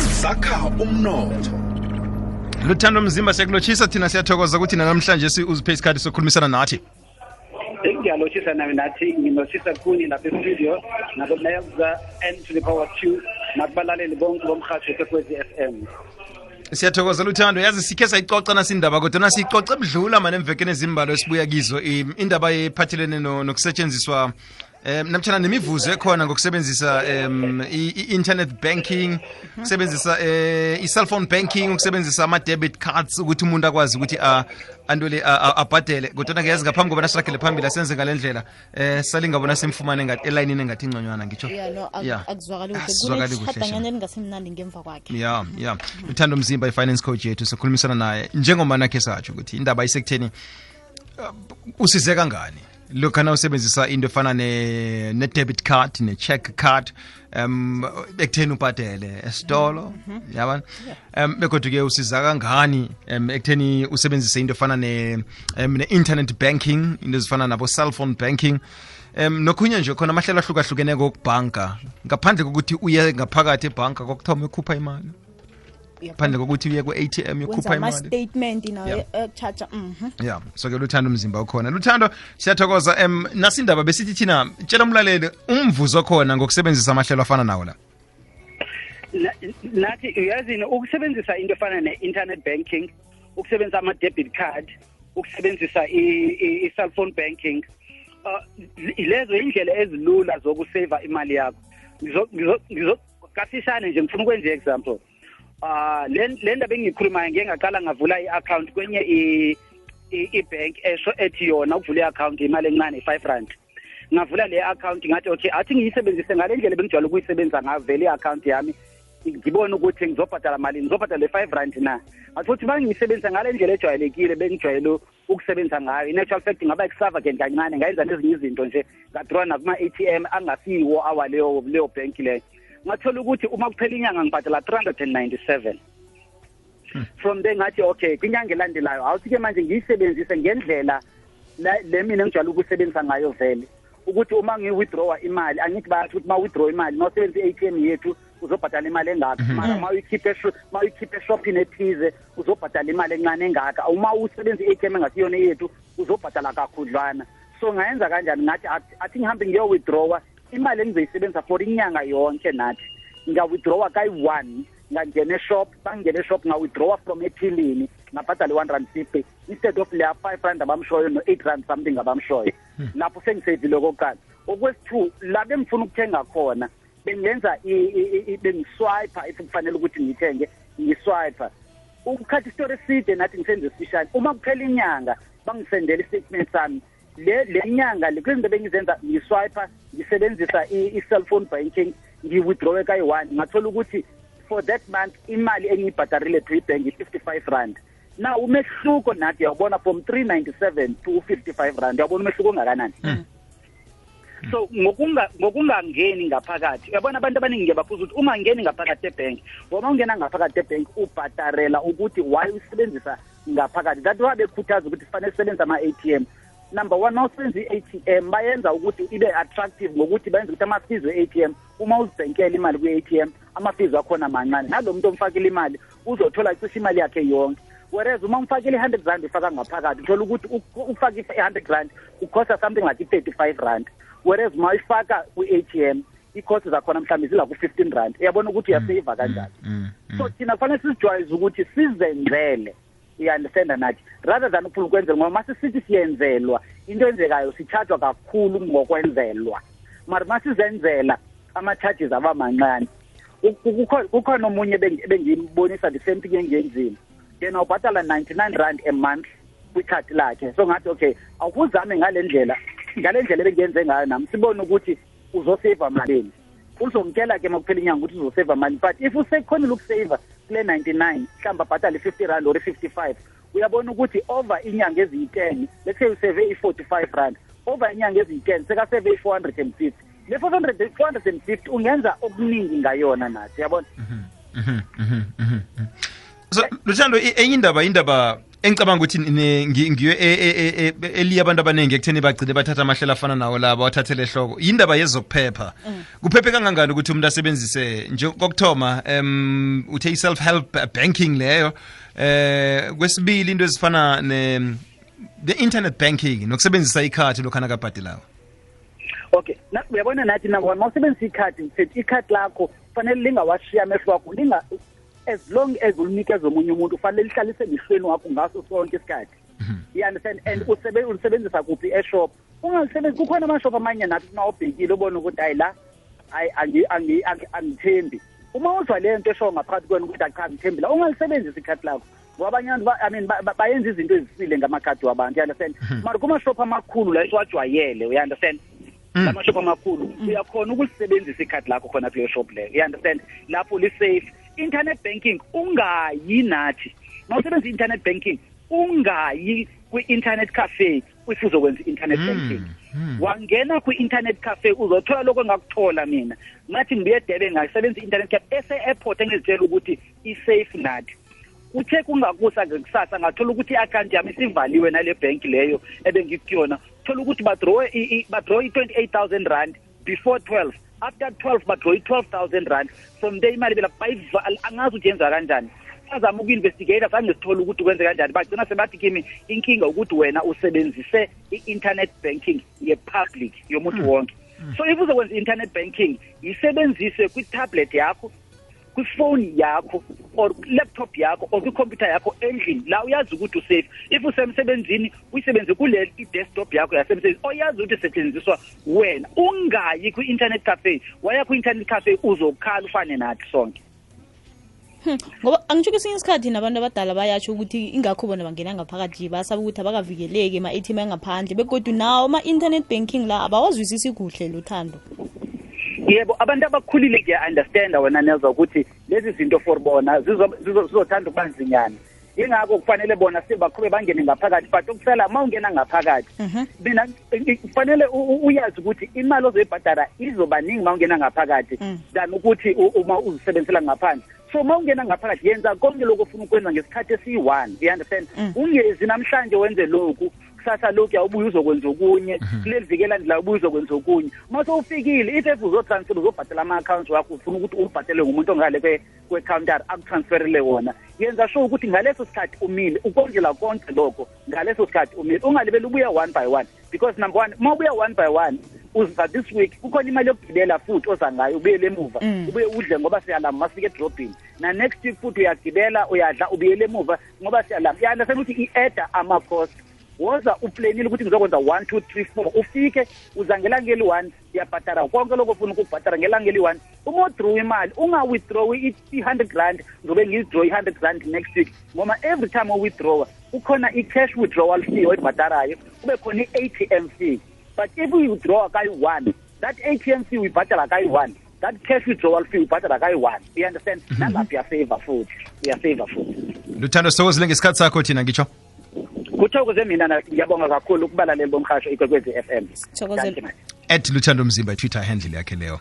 sakha umnotho. Luthando Mzimba siyakulochisa thina siyathokoza ukuthi namhlanje uziphe isikhathi sokukhulumisana nathi. Ngiyalochisa nami nathi nginochisa kuni lapha e-studio nakunayaza N to the power 2 nakubalaleli bonke bomkhathi weKwekwezi FM. Siyathokoza Luthando, yazi sikhe sayicoca nasindaba kodwa nasicoca ebudlula manje emvekeni ezimbalo esibuya kizo indaba ephathelene nokusetshenziswa namtshana nemivuzo ekhona ngokusebenzisa i-internet banking, ukusebenzisa i-cell phone banking, ukusebenzisa ama-debit cards ukuthi umuntu akwazi ukuthi andole abhadele. Kodwa ngiyazi ngaphambi koba nasiragele phambili asenze ngalendlela salingabona simfumane ngathi elayinini engathi ingconywana ngitsho. Akuzwakali kuhle kunesidanganyana elingasimnandi ngemva kwakhe. Yeah. Luthando Mzimba i-finance coach yethu sokhulumisana naye njengoba nakhe satsho ukuthi indaba isekutheni usize kangani lokana usebenzisa into efana ne-debit card ne-check card ekutheni ubhadele esitolo yabona bekodwa ke usiza kangani ekutheni usebenzise into efana ne-internet banking, into ezifana nabo cell phone banking nokhunye nje khona amahlelo ahlukahlukeneko okubhanka ngaphandle kokuthi uye ngaphakathi ebhanka kokuthoma ekhupha imali, phandle kokuthi uye ku-ATM yokhupha imali, statement nayo charge so ke Luthando Mzimba ukhona. Luthando siyathokoza nasindaba besithi thina tshela umlaleli umvuzo khona ngokusebenzisa amahlelo afana nawo la. Nathi uyazini ukusebenzisa into efana ne-internet banking, ukusebenzisa ama-debit card, ukusebenzisa i-cell phone banking, lezo indlela ezilula zokuseva imali yakho. Kasishane nje ngifuna ukwenza i-example. Le ndaba engiyikhulumayo ngeke ngaqala ngavula i-account kwenye i-bank ethi yona ukuvula i-account imali encane i-R5. Ngavula le account ngathi okay athi ngiyisebenzise ngale ndlela bengijwayele ukuyisebenza ngayo vele i-account yami ngibone ukuthi ngizobhadala malini, ngizobhadala le-R5 na. Athi futhi bangiyisebenzisa ngale ndlela ejwayelekile bengijwayele ukusebenza ngayo. In actual fact ngaba extravagant kancane, ngayenza nezinye izinto nje ngadraw nakuma-ATM angasiwo awaleyo bank leyo. Ngathola ukuthi uma kuphela inyanga ngibhadala 397. From there ngathi okay kwinyanga elandelayo awuthi-ke manje ngiyisebenzise ngendlela le mina ngijwayele ukusebenzisa ngayo vele, ukuthi uma ngi-withdrawa imali angithi bayathi ukuthi uma withdraw imali mawusebenzisa i-ATM yethu uzobhadala imali engaka, mara ma uyikhiphe eshopini ethize uzobhadala imali encane engaka, uma usebenzisa i-ATM engasiyona yethu uzobhadala kakhudlwana. So ngayenza kanjani, ngathi athi ngihambe ngiyo-withdrawa imali engizoyisebenzisa for inyanga yonke. Nathi nga-withdrawa kayi-1 ngangena eshop, bangena eshop nga-withdrawa from ethilini ngabhadala i-R150 instead of leya R5 abamshoyo no-R8 something abamshoyo. Lapho sengisevile kokuqala. Okwesi-2 la bengifuna ukuthenga khona bengenza bengiswiper if kufanele ukuthi ngithenge ngiswiper. Ukukhathi isitori eside nathi ngisenze isifishane, uma kuphela inyanga bangisendela i-statement sami le nyanga lezinto bengizenza ngiswiper ngisebenzisa i-cell phone banking ngi-withdraw kayi-1 ngathola ukuthi for that month imali engiyibhadarile to ibank i-R55. Now umehluko nathi uyabona from 397 to 55 rand, uyabona umehluko ongakanani. So ngokungangeni ngaphakathi, uyabona abantu abaningi ngiyababuza ukuthi uma ngeni ngaphakathi ebank, uma ungena ngaphakathi ebank ubhadarela ukuthi why usebenzisa ngaphakathi. That why bekhuthaza ukuthi kufanele usebenzise ama-ATM. Number 1, mawusenza i-ATM bayenza ukuthi ibe attractive ngokuthi bayenza ukuthi ama-fees we-ATM uma uzibhenkela imali kwi-ATM ama-fees akhona mancane. Nalo muntu omfakile imali uzothola cishe imali yakhe yonke. Whereas uma umfakile i-R100 ufaka ngaphakathi uthola ukuthi ufaka i-R100 ukhosta something like i-R35. Whereas uma uyifaka kwi-ATM i-cost zakhona mhlawumbe zila ku-R15. Uyabona ukuthi uyaseva kanjani. So thina kufanele sizijwayeze ukuthi sizenzele, i-understand nathi, rather than ukufuna ukwenzelwa, ngoba masisithi siyenzelwa into enzekayo sichargewa kakhulu ngokwenzelwa, mara masizenzela ama-charges aba mancane. Kukhona omunye bengimbonisa the same thing engiyenzile, yena ubhadala 99 rand a month kwikhadi lakhe. So ngathi okay awukuzame ngale ndlela ebengiyenze ngayo nami sibone ukuthi uzoseva malini. Uzomtshela ke makuphela inyanga ukuthi uzoseva mali, but if usekhonile ukuseva kule 99 mhlawumbe abhadale 50 rand or 55, uyabona ukuthi over inyanga eziyi-10 let's say useve i-45 rand, over inyanga eziyi-10 sekaseve i-450. Le 450 ungenza okuningi ngayona nathi, yabona. So Luthando enye indaba engicabanga ukuthi ngiyo eliya abantu abaningi ekutheni bagcine bathatha amahlela afana nawo laba wathathele ehloko yindaba yezokuphepha kuphephe kangangani ukuthi umuntu asebenzise nje kokuthoma uthe i-self help banking leyo kwesibili into ezifana the internet banking nokusebenzisa ikhadi lokhana kabhadelayo. Okay, uyabona nathi number one mawusebenzisa ikhadi sithi ikhadi lakho fanele lingawashiya amehlo wakho as long as ulinikeza omunye umuntu fanele lihlalise emehlweni wakho ngaso sonke isikhathi. You understand? And ulisebenzisa kuphi eshop ungalisebenzisa kukhona amashop amanye nathi nawubhekile ubona ukuthi hayi la angithembi uma uzwa le nto esho ngaphakathi kwena ukuthi cha ngithembi la ungalisebenzisa ikhadi lakho ngoba abanye abantu bayenza izinto ezisile ngamakhadi wabantu. You understand? Mara kuma shop amakhulu la esiwajwayele, you understand? Amashop amakhulu uyakhona ukulisebenzisa ikhadi lakho khona kuleyo shop leyo. You understand? Lapho li safe. Internet banking ungayi nathi mawusebenza internet banking ungayi kwi-internet cafe if uzokwenza internet banking. Wangena kwi-internet cafe uzothola lokho engakuthola mina ngathi ngibuye eDurban ngasebenza internet cafe ese-airport engizitshela ukuthi i-safe nathi. Uthe kungakusa ngekusasa ngathola ukuthi i-account yami isivaliwe nale bank leyo ebengikuyona. Thola ukuthi badraw i-28,000 rand before 12. After 12 badraw i-12,000 rand. From there imali bela bayivala angazi ukuthi yenza kanjani. Azama uku-investigate zange sithole ukuthi kwenze kanjani. Bagcina sebathi kimi inkinga ukuthi wena usebenzise i-internet banking ye-public yomuntu wonke. So if uzokwenza internet banking yisebenzise kwi-tablet yakho, kwi-phone yakho or laptop yakho or kwi-computer yakho endlini la uyazi ukuthi usafe. If usemsebenzini uyisebenzise kule i-desktop yakho yasemsebenzini oyazi ukuthi isetshenziswa wena ungayi kwi-internet cafe. Waya kwi-internet cafe uzokhala ufane nathi sonke. Ngoba angisho kesinye isikhathi nabantu abadala bayasho ukuthi ingakho bona bangena ngaphakathi basaba ukuthi abakavikeleki ama-ATM angaphandle begodwa nawo ama-internet banking la abawazwisisi kuhle luthando. Yebo, abantu abakhulile ngiya-understanda wena nezwa ukuthi lezi zinto for bona zizothanda ukubanzinyana. Ingakho kufanele bona sibaqhube bangene ngaphakathi but ukusela uma ungena ngaphakathi mina kufanele uyazi ukuthi imali ozoyibhadala izobaningi uma ungena ngaphakathi than ukuthi uma uzisebenzisela ngaphandle. So uma ungena ngaphakathi yenza konke lokho ofuna ukwenza ngesikhathi esi-1. You understand? Ungezi namhlanje wenze lokhu kusasa lokhu yawubuya uzokwenza okunye kuleli vikela ndla ubuya uzokwenza okunye. Uma sowufikile if uzotransfer uzobhadala ama-accounts wakho ufuna ukuthi ubhadele ngumuntu ongale kwe-counter akutransferele wona. Yenza sure ukuthi ngaleso sikhathi umile ukondlela konke lokho ngaleso sikhathi umile ungalibeli ubuya one by one because number one uma ubuya one by one uza this week kukhona imali yokugibela futhi oza ngayo ubuyele emuva ubuye udle ngoba siyalama masifike edrobhini na next week futhi uyagibela uyadla ubuyele emuva ngoba siyalama. Uyandasena ukuthi i-adda ama-cost woza uplanile ukuthi ngizokwenza 1 2 3 4 ufike uza ngelanga eli-1 uyabhadala konke lokho ufuna ukubhadala ngelanga eli-1. Uma udraw imali unga-withdraw i-100 rand ngizobe ngi-withdraw i-100 rand next week ngoba every time u-withdrawa ukhona i-cash withdrawal fee oyibhadalayo kube khona i-ATM fee. But if we withdraw kayi-1 that ATM fee uyibhadala kayi-1 that cash withdrawal fee uyibhadala kayi-1. You understand? Nalapho uyaseva futhi Luthando sithokozile ngesikhathi sakho thina ngitsho kuthokoze mina ngiyabonga kakhulu ukubalaleli bomhasho iKwekwezi FM. Thokozela @Luthando Mzimba Twitter handle yakhe leyo.